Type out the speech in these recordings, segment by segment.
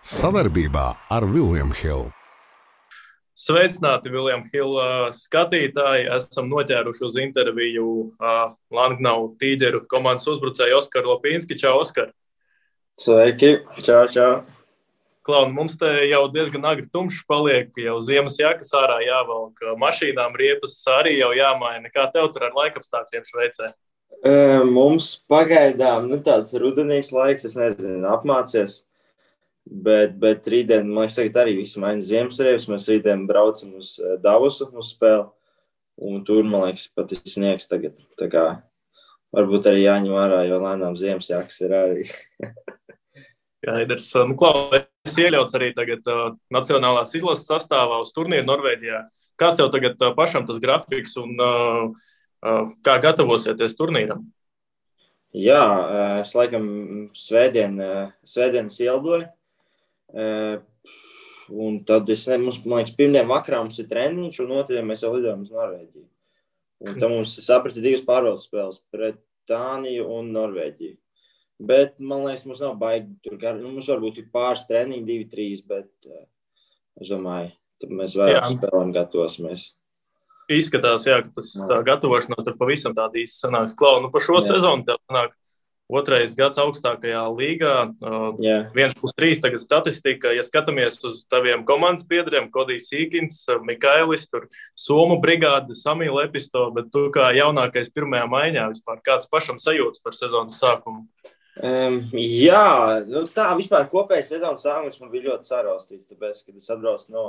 Savarbībā ar William Hill. Sveicināti, William Hill skatītāji. Esam noķēruši uz interviju Langnau Tīģeru komandas uzbrucēju Oskaru Lopinski. Čau, Oskar! Sveiki! Čau, čau! Klaun, mums te jau diezgan agri tumšs paliek, jau ziemas jakas ārā jāvelk, mašīnām riepas arī jau jāmaina. Kā tev tur ar laikapstākļiem Šveicē? Mums pagaidām tāds rudenīgs laiks, es nezinu, apmācies. Bet rītdien, man liekas, tagad arī visi maina ziemassriepas. Mēs rītdien braucam uz Davosu uz spēli. Un tur, man liekas, pat ir sniegs tagad. Tā kā varbūt arī jāņem ārā, jo lēnām ziemas jakas ir arī. Skaidrs. Klau, es iekļauts arī tagad nacionālās izlases sastāvā uz turnīru Norvēģijā. Kāds tev tagad pašam tas grafiks un kā gatavosieties turnīram? Jā, es laikam svētdienas ieldoju. Un tad mums, man liekas, pirmdien vakarā mums ir treniņš, un otrajā mēs jau lidojam uz Norvēģiju. Un tad mums saprati 2 pārbaudas spēles pret Dāniju un Norvēģiju. Bet, man liekas, mums nav baigi tur mums varbūt ir pāris treniņi, 2-3, bet es domāju, tad mēs vairāk spēlēm gatavosimies. Izskatās, jā, ka tas gatavošanās tur pavisam tāda īsti sanāks. Klau, par šo sezonu tev sanāk 2. gads augstākajā līgā, 1+3 tagad statistika. Ja skatāmies uz taviem komandas biedriem, Kodijs Sīkins, Mikailis, tur Somu brigāde, Samīl Episto, bet tu kā jaunākais pirmajā maiņā vispār, kāds pašam sajūtas par sezonas sākumu? Jā, tā vispār kopējais sezonas sākums man bija ļoti saraustīts, tāpēc, kad es atbraucu no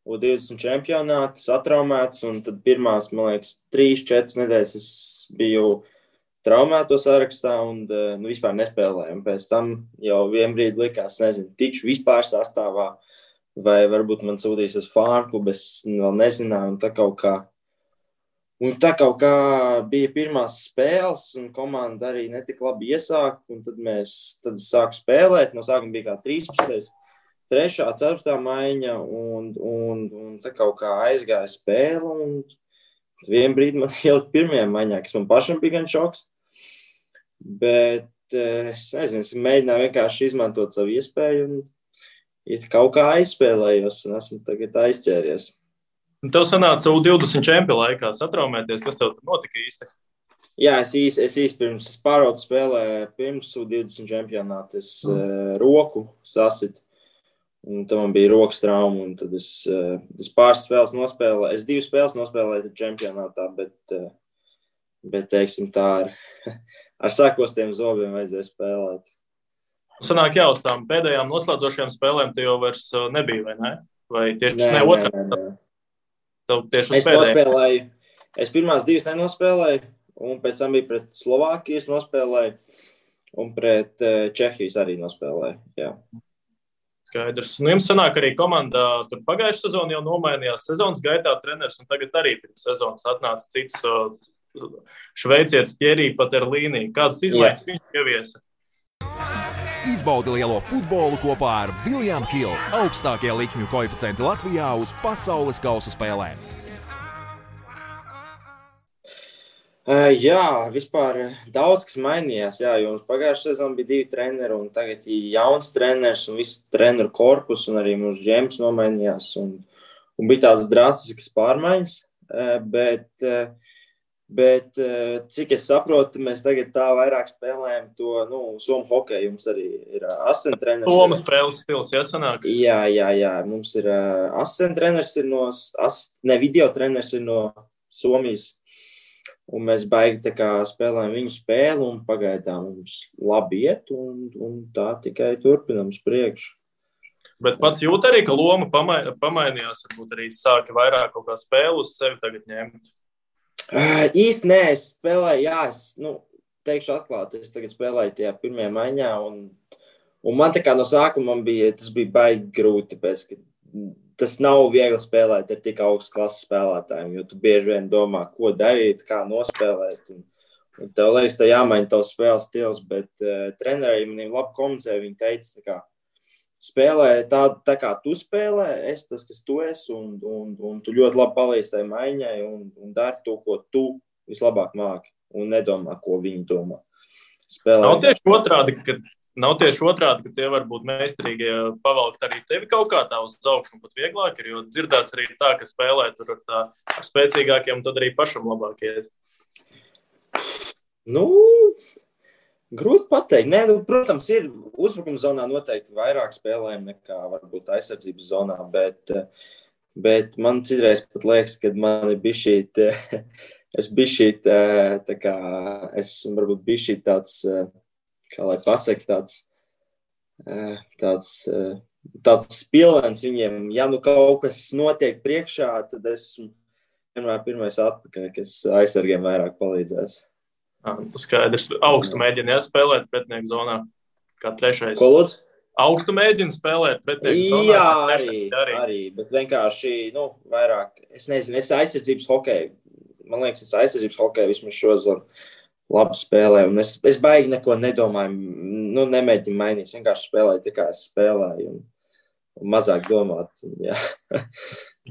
U20 čempionāta, satraumēts, un tad pirmās, man liekas, 3-4 nedēļas es biju traumēto sarakstā un vispār nespēlēju. Pēc tam jau vienbrīd likās, nezinu, tikšu vispār sastāvā, vai varbūt man sūtīs uz fārklubu, es vēl nezināju, un tā kaut kā bija pirmās spēles, un komanda arī netik labi iesāk, un tad es sāku spēlēt, no sākuma bija kā 13. 3., 4. maiņa, un tā kaut kā aizgāja spēle, un vienbrīd man ielikt pirmajā maiņā, kas man pašam bija gan šoks. Bet es nezinu, es mēģināju vienkārši izmantot savu iespēju un kaut kā aizspēlējos un esmu tagad aizķēries. Tev sanāca U20 čempionu laikā satraumēties, kas tev tur notika īsti? Jā, es īsti pirms pārbaudas spēlē, pirms U20 čempionāta es roku sasitu. Un tad man bija rokas trauma, un tad es pāris spēles nospēlēju. Es 2 spēles nospēlēju čempionātā, bet teiksim tā, ar sakostiem zobiem vajadzēja spēlēt. Sanāk jau uz tām pēdējām noslēdzošajām spēlēm te jau vairs nebija, vai ne? Vai tieši Nē. Tev tieši es nospēlēju, es pirmās 2 nenospēlēju, un pēc tam bija pret Slovākijas nospēlēju, un pret Čehijas arī nospēlēju, jā. Skaidrs. Jums sanāk arī komandā, tur pagājušā sezona jau nomainījās sezonas gaitā treneris, un tagad arī pirms sezonas atnāca cits šveicietis Thierry Paterlīnī. Kādas izmaiņas viņš ieviesa? Izbaudi lielo futbolu kopā ar William Hill. Augstākie likmju koeficienti Latvijā uz pasaules kausa spēlēm. Jā, vispār daudz kas mainījās, jā, jo mums pagājušā sezona bija 2 treneri, un tagad ir jauns treneris, un viss treneru korpus, un arī mūsu džems nomainījās, un bija tādas drastiskas pārmaiņas, bet cik es saprotu, mēs tagad tā vairāk spēlējam to, Somu hokeju, mums arī ir asistent treneris. Somu spēles stils, jāsanāk? Jā, mums ir asistent treneris, video treneris ir no Somijas. Un mēs baigi tā kā spēlējam viņu spēli, un pagaidām mums labi iet, un tā tikai turpinam uz priekšu. Bet pats jūt arī, ka loma pamainījās, varbūt arī sāka vairāk kaut kā spēlu uz sevi tagad ņemt? Īsti nē, es spēlēju, teikšu atklāti, es tagad spēlēju tajā pirmajā maiņā, un man tā kā no sākuma tas bija baigi grūti, tāpēc, ka tas nav viegli spēlēt ar tik augstas klases spēlētājiem, jo tu bieži vien domā, ko darīt, kā nospēlēt. Un tev liekas, tev jāmaina tavs spēles stils, bet trenerei maniem labi komunicēja, viņi teica, ka spēlē tā kā tu spēlē, es tas, kas tu esi, un tu ļoti labi palīdzi tai maiņai, un dari to, ko tu vislabāk māki, un nedomā, ko viņi domā. Nav tieši otrādi, ka nav tieši otrādi, ka tie varbūt meistarīgie pavalkt arī tevi kaut kā tā uz augšu un pat vieglāk ir, jo dzirdēts arī tā, ka spēlē tur ar spēcīgākiem un tad arī pašam labāk iet. Grūti pateikt. Nē, protams, ir uzbrukuma zonā noteikti vairāk spēlējumi nekā varbūt aizsardzības zonā, bet man citreiz pat liekas, ka man ir bišķīt, es varbūt bišķīt tāds, kā lai pasaka, tāds spilvens viņiem. Ja kaut kas notiek priekšā, tad esmu vienmēr pirmais atpakaļ, kas aizsargiem vairāk palīdzēs. Skaidrs. Augstu mēģina spēlēt pretinieku zonā, kā trešais. Ko lūdzu? Augstu mēģina spēlēt pretinieku zonā. Jā, arī, bet vienkārši, vairāk, es nezinu, es aizsardzības hokeju, man liekas, es aizsardzības hokeju vismaz šozonu labi spēlēju, un es baigi neko nedomāju, nemēģinu mainīt, vienkārši spēlēju, tā kā es spēlēju, un mazāk domāt, jā,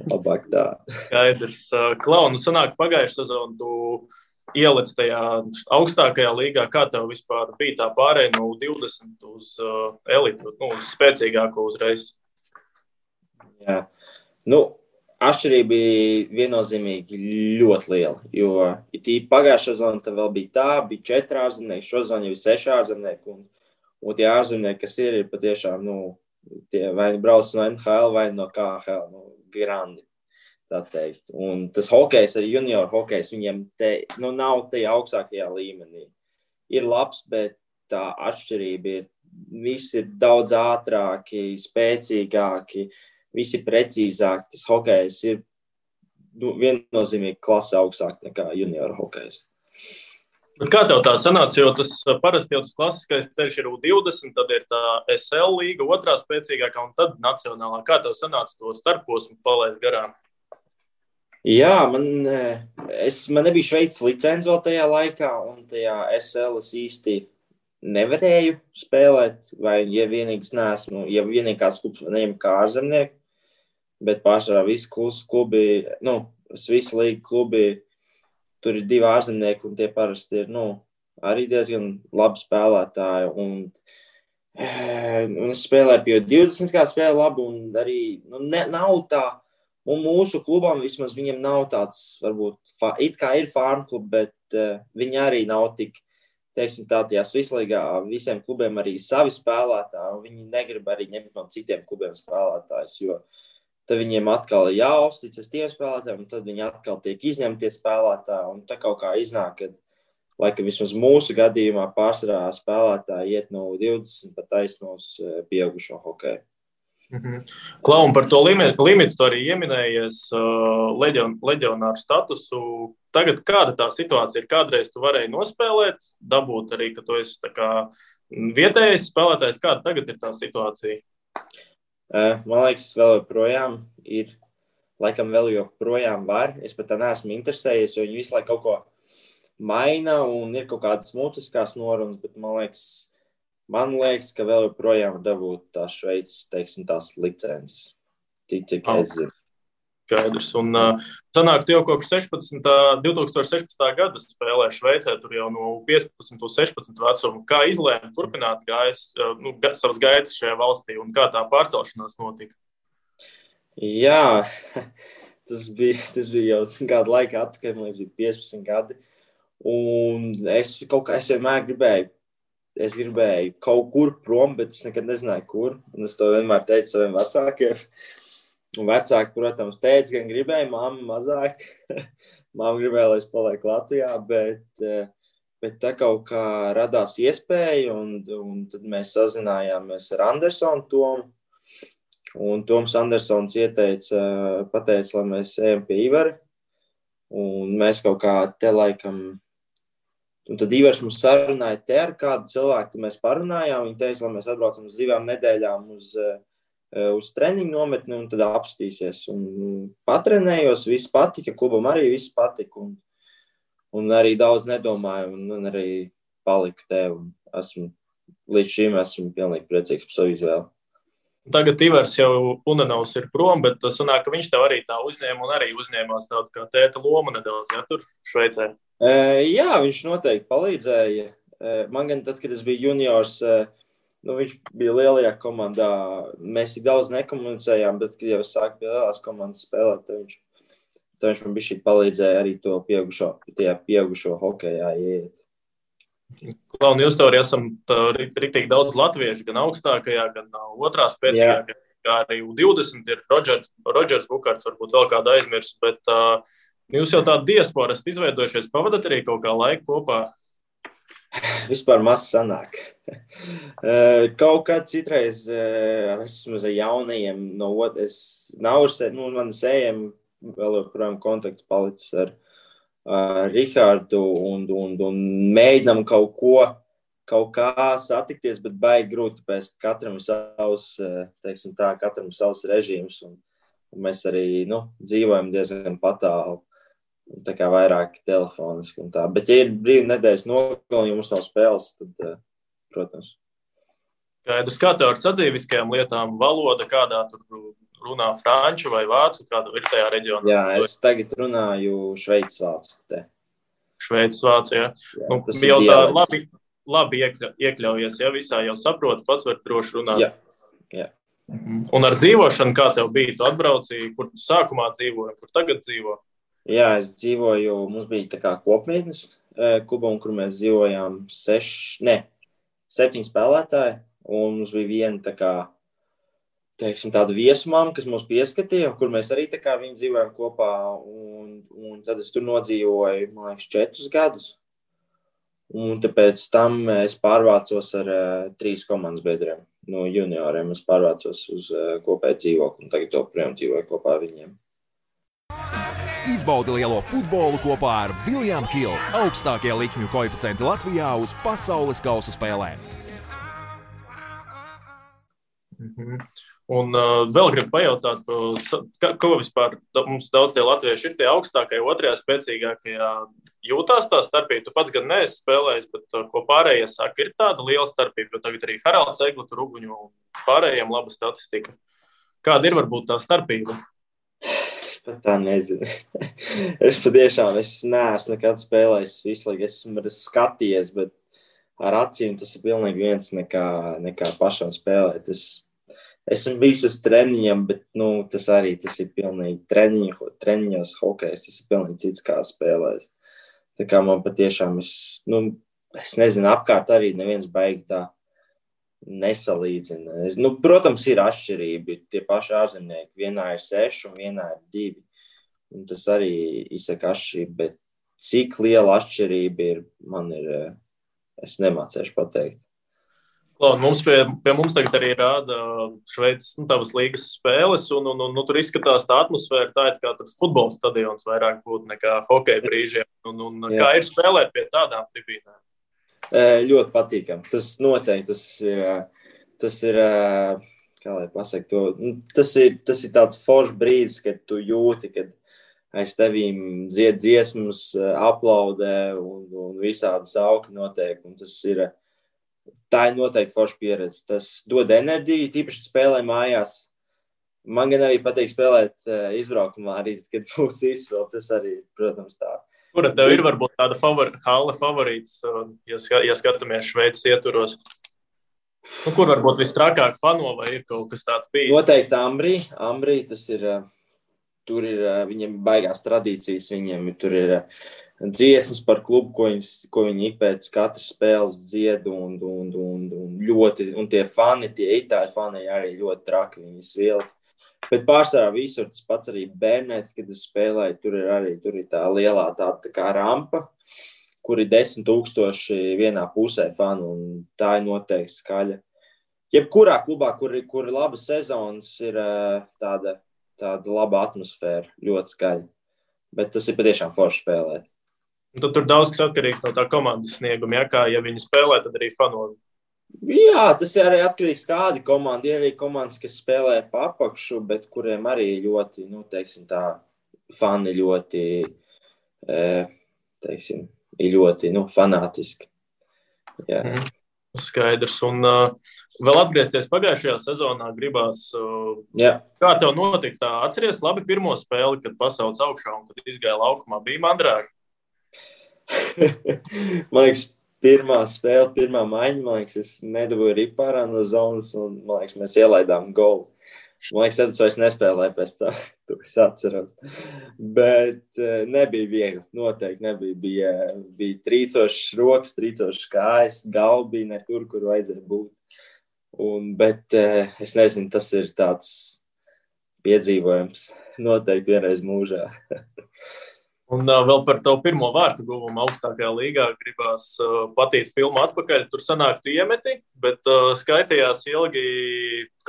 labāk tā. Skaidrs. Klau, sanāk pagājušā sezonu, tu ielic tajā augstākajā līgā, kā tev vispār bija tā pārēja no 20 uz elitu, uz spēcīgāko uzreiz? Jā, atšķirība bija viennozīmīgi ļoti liela, jo pagājušā sezona tad vēl bija 4 ārzemnieki, šo sezonu jau ir 6 ārzemnieki, un tie ārzemnieki, kas ir patiešām, tie vai brauc no NHL vai no KHL, grandi. Tā teikt. Un tas hokejs, arī junior hokejs, viņiem nav tajā augstākajā līmenī. Ir labs, bet tā atšķirība ir, visi ir daudz ātrāki, spēcīgāki, visi precīzāki. Tas hokejs ir viennozīmīgi klase augstāk nekā junior hokejs. Bet kā tev tā sanāca, jo tas parasti jau tas klasiskais ceļš ir U20, tad ir tā SL līga, otrā spēcīgākā un tad nacionālā. Kā tev sanāca to starposmu palaist garām? Jā, man nebija Šveices licence vēl tajā laikā, un tajā SL es īsti nevarēju spēlēt, vai ja vienīgās klubs neņem kā ārzemnieki, bet pārsvarā visi klubi, visi līga klubi, tur ir 2 ārzemnieki, un tie parasti ir, arī diezgan labi spēlētāji, un es spēlēju pie 20, kā spēlēju labi, un arī, nav tā. Un mūsu klubam vismaz viņam nav tāds, varbūt, it kā ir farm klubi, bet viņi arī nav tik, teiksim tā, tajā Svislīgā visiem klubiem arī savi spēlētāji, un viņi negrib arī ņemt no citiem klubiem spēlētājus, jo tad viņiem atkal ir jāuzticas tiem spēlētājiem, un tad viņi atkal tiek izņemtie spēlētāji, un tā kaut kā iznāk, kad, laikam vismaz mūsu gadījumā pārsvarā spēlētāji iet no 20 pat taisnos pieaugušo hokeju. Klau, un par to limitu tu arī ieminējies leģionāru statusu. Tagad kāda tā situācija ir? Kādreiz tu varēji nospēlēt, dabūt arī, ka tu esi tā kā vietējais spēlētājs. Kāda tagad ir tā situācija? Man liekas, vēl joprojām ir, laikam vēl joprojām var. Es pat tā neesmu interesējies, jo viņi visu laiku kaut ko maina un ir kaut kādas mutiskās norunas, bet man liekas, ka vēl joprojām dabūt tās Šveices, teiksim, tās licences. Cik es zinu. Skaidrs. Un sanāk, tu jau kopš 2016. gada spēlē Šveicē, tur jau no 15 uz 16 vecumu. Kā izlēma turpināt savas gaitas šajā valstī un kā tā pārcelšanās notika? Jā, tas bija jau kādu laiku atpakaļ, man liekas, bija 15 gadi. Un es vienmēr gribēju kaut kur prom, bet es nekad nezināju, kur. Un es to vienmēr teicu saviem vecākiem. Un vecāki, protams, teica, gan gribēja, mamma mazāk. Mamma gribēja, lai es palieku Latvijā, bet tā kaut kā radās iespēja, un tad mēs sazinājāmies ar Andersonu Tomu. Un Toms Andersons pateica, lai mēs ejam pie Ivara. Un mēs kaut kā te laikam... Un tad Ivars mums sarunāja te ar kādu cilvēku, tad mēs parunājām. Viņi teica, lai mēs atbraucam uz 2 nedēļām uz treniņu nometni un tad apstīsies. Un patrenējos, viss patika, klubam arī viss patika. Un arī daudz nedomāju un arī paliku te. Un līdz šim esmu pilnīgi priecīgs par savu izvēli. Tagad Ivars jau Unanovs ir prom, bet sanāk, ka viņš tev arī tā uzņēma un arī uzņēmās tādu kā tēta lomu nedaudz, ja, tur Šveicē. Jā, viņš noteikti palīdzēja. Man gan tad, kad es biju juniors, viņš bija lielajā komandā. Mēs tik daudz nekomunicējām, bet, kad jau es sāku pie lielās komandas spēlēt, tad viņš man bišķīt palīdzēja arī to pieaugušo hokejā ieiet. Klauni, jūs tev arī esam riktīgi daudz latviešu, gan augstākajā, gan otrā spēcīgākajā, kā arī U20 ir Rodžers Bukārts, varbūt vēl kādu aizmirst, bet jūs jau tādu diasporu esat izveidojušies, pavadat arī kaut kā laiku kopā? Vispār maz sanāk. Kaut kā citreiz esmu ar jaunajiem no man sējiem vēl joprojām kontakts palicis ar Rihardu un mēģinām kaut kā satikties, bet baigi grūti, tāpēc katram savs režīms un mēs arī dzīvojam diezgan patālu. Tā kā vairāk telefoniski un tā. Bet, ja ir brīvi nedēļas nogalī, ja mums nav spēles, tad, protams. Skaidrs, kā tev ar sadzīviskajām lietām valoda, kādā tur runā franču vai vācu, kāda ir tajā reģionā? Jā, es tagad runāju šveicis vācu. Šveicis vācu, jā. Jau tā labi iekļaujies, ja visā jau saproti, pats var droši runāt. Jā. Un ar dzīvošanu, kā tev bija? Tu atbraucīji, kur tu sākumā dzīvoji, kur tagad dzīvo? Jā, es dzīvoju, mums bija tā kā kopmītnes klubā, kur mēs dzīvojām 7 spēlētāji, un mums bija viena tā kā, tāda viesumām, kas mums pieskatīja, kur mēs arī tā kā viņi dzīvojām kopā, un tad es tur nodzīvoju, man liekas, 4 gadus, un tāpēc tam es pārvācos ar 3 komandas biedriem no junioriem, es pārvācos uz kopēju dzīvokli, un tagad joprojām dzīvoju kopā ar viņiem. Izbaudi lielo futbolu kopā ar William Hill, augstākie likmju koeficienti Latvijā uz pasaules kausa spēlēm. Un vēl gribu pajautāt, ko vispār mums daudz tie latvieši ir tie augstākie, otrajā spēcīgākajā jūtās tā starpība? Tu pats gan neesi spēlējis, bet ko pārējie saka, ir tāda liela starpība, jo tagad arī Haralds Eglu, Ruguņu un pārējiem laba statistika. Kāda ir varbūt tā starpība? Tā nezinu. Es patiešām neesmu nekad spēlējis visu laiku. Esmu skatījies, bet ar acīm tas ir pilnīgi viens nekā pašam spēlēt. Esmu bijis uz treniņiem, bet tas ir pilnīgi treniņos hokejs. Tas ir pilnīgi cits kā spēlēs. Tā kā man patiešām, es nezinu, apkārt arī neviens baigi tā nesalīdzina. Protams, ir atšķirība. Tie paši ārzemnieki. Vienā ir 6 un vienā ir 2. Un tas arī izsaka atšķirība, bet cik liela atšķirība es nemācēšu pateikt. Klaud, pie mums tagad arī rāda Šveices tavas līgas spēles, un tur izskatās tā atmosfēra, tā ir kā tur futbola stadions vairāk būtu nekā hokeja brīžiem. Un kā ir spēlēt pie tādām tribīnēm? Ļoti patīkam. Tas noteikti, tas ir kā lai pasaka to, tas ir tāds foršs brīdis, kad tu jūti, kad aiz tevīm dzied dziesmas, aplaudē un visādi sauki notiek. Un tā ir noteikti forša pieredze. Tas dod enerģiju, tīpaši spēlē mājās. Man gan arī patīk spēlēt izbraukumā arī, kad būs izvēl, tas arī, protams, tā. Kura tev ir varbūt tāda hale favorīts, ja skatāmies Šveices ietvaros? Kur varbūt vistrakāk fano vai ir kaut kas tāds bijis? Noteikti Ambrī, tas ir, tur ir viņiem baigās tradīcijas, viņiem tur ir dziesmas par klubu, ko viņi pēc katras spēles dzied un ļoti, un tie fani, tie itāļu fani arī ļoti traki, viņi svieli. Bet pārsvarā visur tas pats arī Bernēts, kad es spēlēju, tur ir tā lielā tā kā rampa, kur ir 10,000 vienā pusē fanu, un tā ir noteikti skaļa. Jebkurā klubā, kur ir laba sezonas, ir tāda laba atmosfēra, ļoti skaļa. Bet tas ir patiešām forši spēlēt. Un tur daudz kas atkarīgs no tā komandas snieguma, ja viņi spēlē, tad arī fano. Jā, tas ir arī atkarīgs kādi komandi. Ir arī komandas, kas spēlē pa apakšu, bet kuriem arī ļoti, fani ļoti, ir ļoti, fanātiski. Jā. Skaidrs. Un vēl atgriezties pagājušajā sezonā gribās. Kā tev notika tā? Atceries labi pirmo spēli, kad pasauc augšā un kad izgāja laukumā? Bija mandrāži? Man liekas, pirmā spēle, pirmā maiņa, man liekas, es nedabūju ripārā no zonas, un, man liekas, mēs ielaidām golu. Man liekas, tad es vairs nespēlēju pēc tā, to es atceros. Bet nebija viegli, noteikti nebija. Bija trīcošs rokas, trīcošs kājas, galva bija ne tur, kur vajadzēja būt. Bet es nezinu, tas ir tāds piedzīvojums noteikti vienreiz mūžā. Un vēl par tavu pirmo vārtu guvumu augstākajā līgā gribās patīt filmu atpakaļ. Tur sanāk, tu iemeti, bet skaitījās ilgi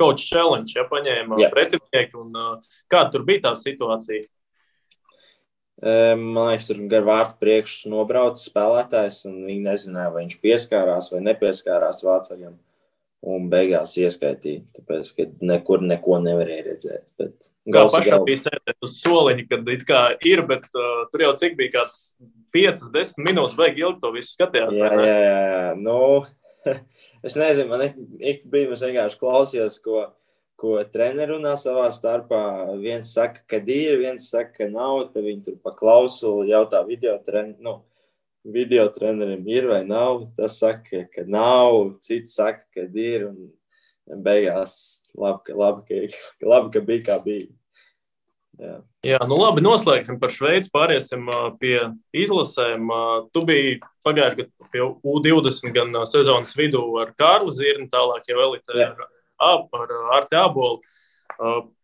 coach challenge, ja paņēma pretinieki. Un kāda tur bija tā situācija? Man liekas, tur gar vārtu priekšu nobrauca spēlētājs, un viņi nezināja, vai viņš pieskārās vai nepieskārās vācaļam. Un beigās ieskaitīja, tāpēc, ka nekur neko nevarēja redzēt. Bet kā pašam bija sēdēt uz soliņa, kad it kā ir, bet tur jau cik bija kāds 5-10 minūtes, baigi ilgi to visu skatījās. Jā. Nu, es nezinu, man ik brīdi es vienkārši klausījos, ko treneri runā savā starpā. Viens saka, ka ir, viens saka, ka nav, tad viņi tur pa klausulu jautā video trenerim ir vai nav. Tas saka, ka nav, cits saka, ka ir, un beigās labi, ka bija kā bija. Jā, nu labi, noslēgsim par Šveici, pāriesim pie izlasēm. Tu biji pagājuši gadu pie U20 gan sezonas vidū ar Kārli Zirni, tālāk jau elitē ar Arti Ābolu.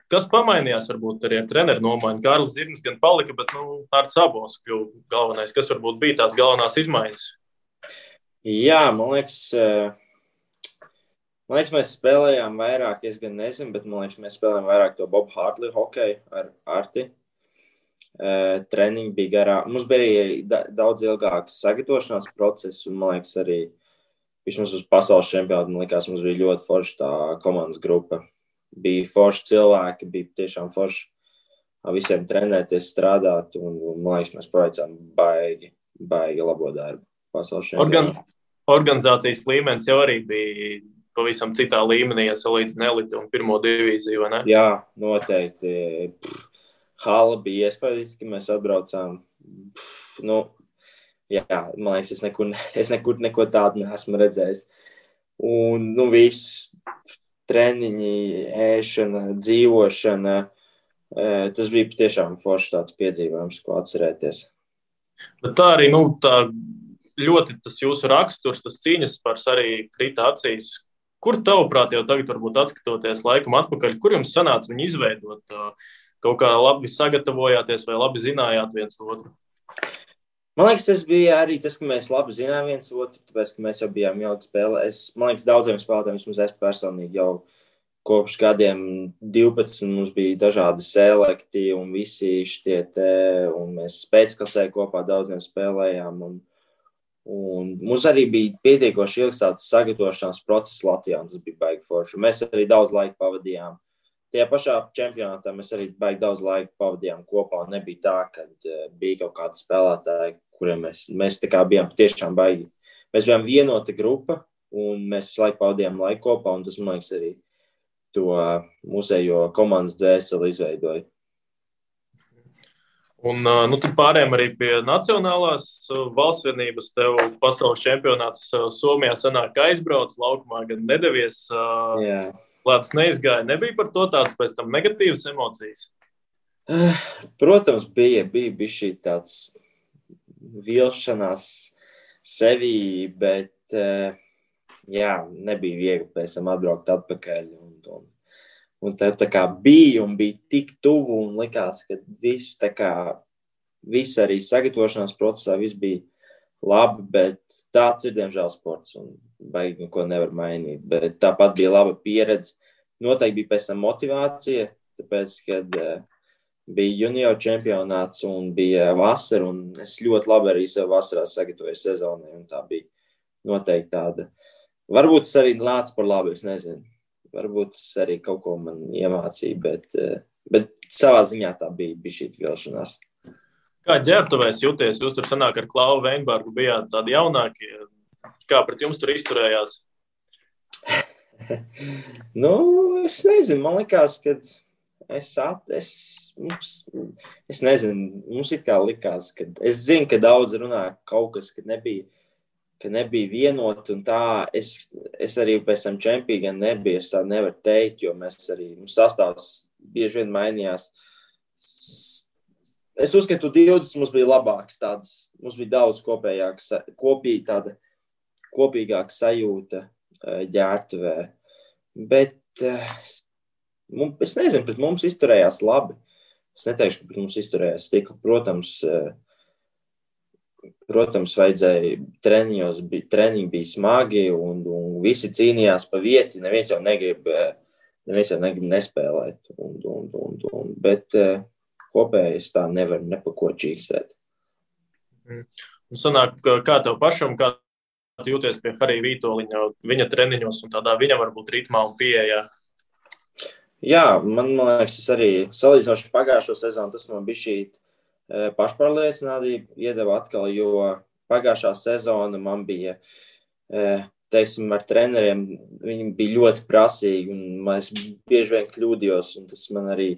Kas pamainījās varbūt arī ar treneru nomaiņu? Kārlis Zirnis gan palika, bet Artis Ābols kļuva galvenais. Kas varbūt bija tās galvenās izmaiņas? Jā, man liekas, mēs spēlējām vairāk, es gan nezinu, bet man liekas, mēs spēlējām vairāk to Bob Hartley hokeju ar Arti. Treniņi bija garāk. Mums bija daudz ilgāks sagatavošanās process, un man liekas arī, vismaz uz pasaules čempionātu, man liekas, mums bija ļoti forša tā komandas grupa. Bija forši cilvēki, bija tiešām forši visiem trenēties, strādāt, un man liekas, mēs paveicām baigi labo darbu pasaules čempionātā. Organizācijas līmenis jau arī bija pavisam citā līmenī, ja salīdzina eliti un pirmo divīziju, vai ne? Jā, noteikti. Hala bija iespējams, ka mēs atbraucām. Jā, man liekas, es nekur neko tādu neesmu redzējis. Un, viss treniņi, ēšana, dzīvošana, tas bija tiešām forši tāds piedzīvojums, ko atcerēties. Bet tā arī, tā ļoti tas jūsu raksturs, tas cīņas spars arī krita acīs. Kur tavuprāt jau tagad varbūt atskatoties laikam atpakaļ, kur jums sanāca viņu izveidot? Kaut kā labi sagatavojāties vai labi zinājāt viens otru? Man liekas, tas bija arī tas, ka mēs labi zinām viens otru, tāpēc, ka mēs jau bijām ilgi spēlē. Man liekas, daudziem spēlētājiem, vismaz es personīgi jau kopš gadiem 12 mums bija dažādi selekti un visi šķietē, un mēs spēcklasē kopā daudziem spēlējām. Un mums arī bija pietiekoši ilgs tāds sagatavošanās process Latvijā, un tas bija baigi forši. Mēs arī daudz laika pavadījām. Tajā pašā čempionātā mēs arī baigi daudz laika pavadījām kopā. Nebija tā, ka bija kaut kādi spēlētāji, kuriem mēs tā kā bijām tiešām baigi. Mēs bijām vienota grupa, un mēs laiku pavadījām laiku kopā, un tas, man liekas, arī to mūsējo komandas dvēseli izveidoja. Un tad pārējām arī pie nacionālās valstsvienības. Tev pasaules čempionāts Somijā sanāk aizbrauc, laukumā gan nedevies. Jā. Lētas neizgāja. Nebija par to tāds pēc tam negatīvas emocijas? Protams, bija šī tāds vilšanās sevī, bet nebija viegli pēc tam atbraukt atpakaļ. Un tā kā bija un bija tik tuvu un likās, ka viss arī sagatavošanās procesā viss bija labi, bet tāds ir, diemžēl, sports un baigi neko nevar mainīt. Bet tāpat bija laba pieredze. Noteikti bija pēc tam motivācija, tāpēc, kad bija junior čempionāts un bija vasara, un es ļoti labi arī sev vasarā sagatavoju sezonai, un tā bija noteikti tāda. Varbūt tas arī nāca par labu, es nezinu. Varbūt tas arī kaut ko man iemācīja, bet savā ziņā tā bija šī vilšanās. Kā ģērbtuvēs jūties? Jūs tur sanāk ar Klauvu Veinbergu bijāt tādi jaunākie. Kā pret jums tur izturējās? Es nezinu. Man likās, ka es nezinu. Mums it kā likās, ka es zinu, ka daudz runā kaut kas, kad nebija ka nebija vienot un tā. Es arī pēc tam čempī gan nebija, es tā nevaru teikt, jo mēs arī, sastāvs bieži vien mainījās. Es uzskatu, 20 mums bija labāks tādas, mums bija daudz kopīgāka sajūta ģērbtuvē. Bet es nezinu, bet mums izturējās labi. Es neteikšu, ka mums izturējās stikli. Protams, vajadzēja treniņi bija smagi un visi cīnījās pa vieti. Neviens jau negrib nespēlēt. Bet kopēji es tā nevaru nepako čīkstēt. Un sanāk, kā tev pašam, kā tu jūties pie Harija Vītoliņa, viņa treniņos un tādā viņa varbūt ritmā un pieejā? Jā, man liekas, es arī salīdzinoši pagājušo sezonu, tas man bija šī pašpārliecinātība iedeva atkal, jo pagājušā sezona man bija, teiksim, ar treneriem, viņi bija ļoti prasīgi un es bieži vien kļūdījos un tas man arī,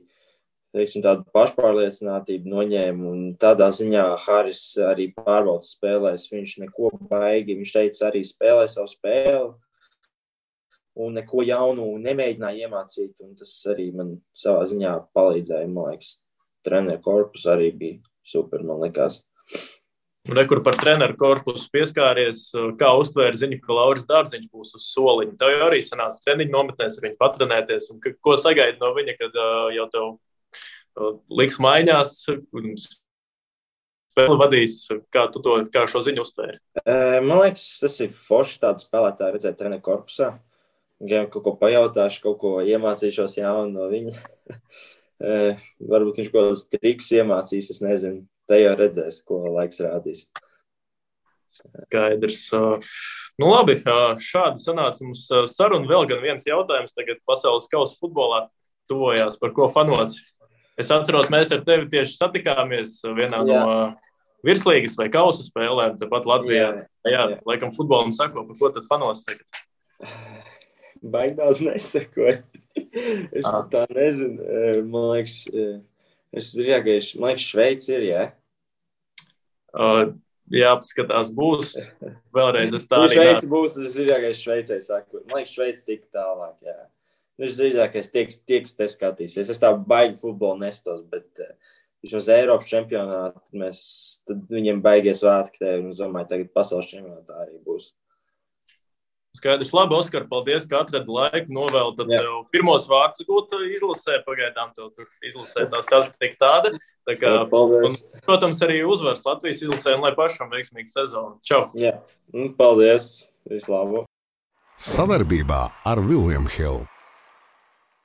teiksim, tādu pašpārliecinātību noņēma un tādā ziņā Haris arī pārbauda spēlēs, viņš neko baigi, viņš teica arī spēlē savu spēli un neko jaunu nemēģināja iemācīt un tas arī man savā ziņā palīdzēja, man liekas, treneru korpus arī bija super, man likās. Rekur par treneru korpusu pieskāries, kā uztvēra ziņu, ka Lauris Dārziņš būs uz soliņa. Tev jau arī sanāca treniņu nometnēs ar viņu patrenēties un ko sagaidi no viņa, kad jau tev liks maiņās, spēli vadīs, kā šo ziņu uztvēri? Man liekas, tas ir forši tādu spēlētāju redzēt treneru korpusā. Gan kaut ko pajautāšu, kaut ko iemācīšos jaunu no viņa. Varbūt viņš kaut kādus trikus iemācīs, es nezinu. Te jau redzēs, ko laiks rādīs. Skaidrs. Nu labi, šādi sanāca mums saruna. Vēl gan viens jautājums tagad pasaules kausa futbolā tuvojās, par ko fanos. Es atceros, mēs ar tevi tieši satikāmies vienā no virslīgas vai kausa spēlēm, tepat Latvijā. Jā, laikam futbolam sako, par ko tad fanos tagad? Baigi daudz nesakoju. Es tā nezinu. Man liekas, Šveici ir, jā? Jā, paskatās, būs. Vēlreiz es tā arī Šveici būs, tas ir jāgais Šveicē saku. Man liekas, Šveici tik tālāk, jā. Es drīzākais tieks te skatīsies. Es tā baigi futbolu nestos, bet vismaz Eiropas čempionātā tad viņiem baigies svētki te, un es domāju, tagad pasaules čempionātā arī būs. Skaidrs. Labi, Oskar, paldies, ka atradi laiku novēl. Tad tev pirmos vārdus gūt izlasē, pagaidām tev tur izlasē tā statistika tāda. Tā kā, paldies. Un, protams, arī uzvars Latvijas izlasē un lai pašam veiksmīgu sezonu. Čau! Jā, paldies. Vislabāk. Savarbībā ar William Hill.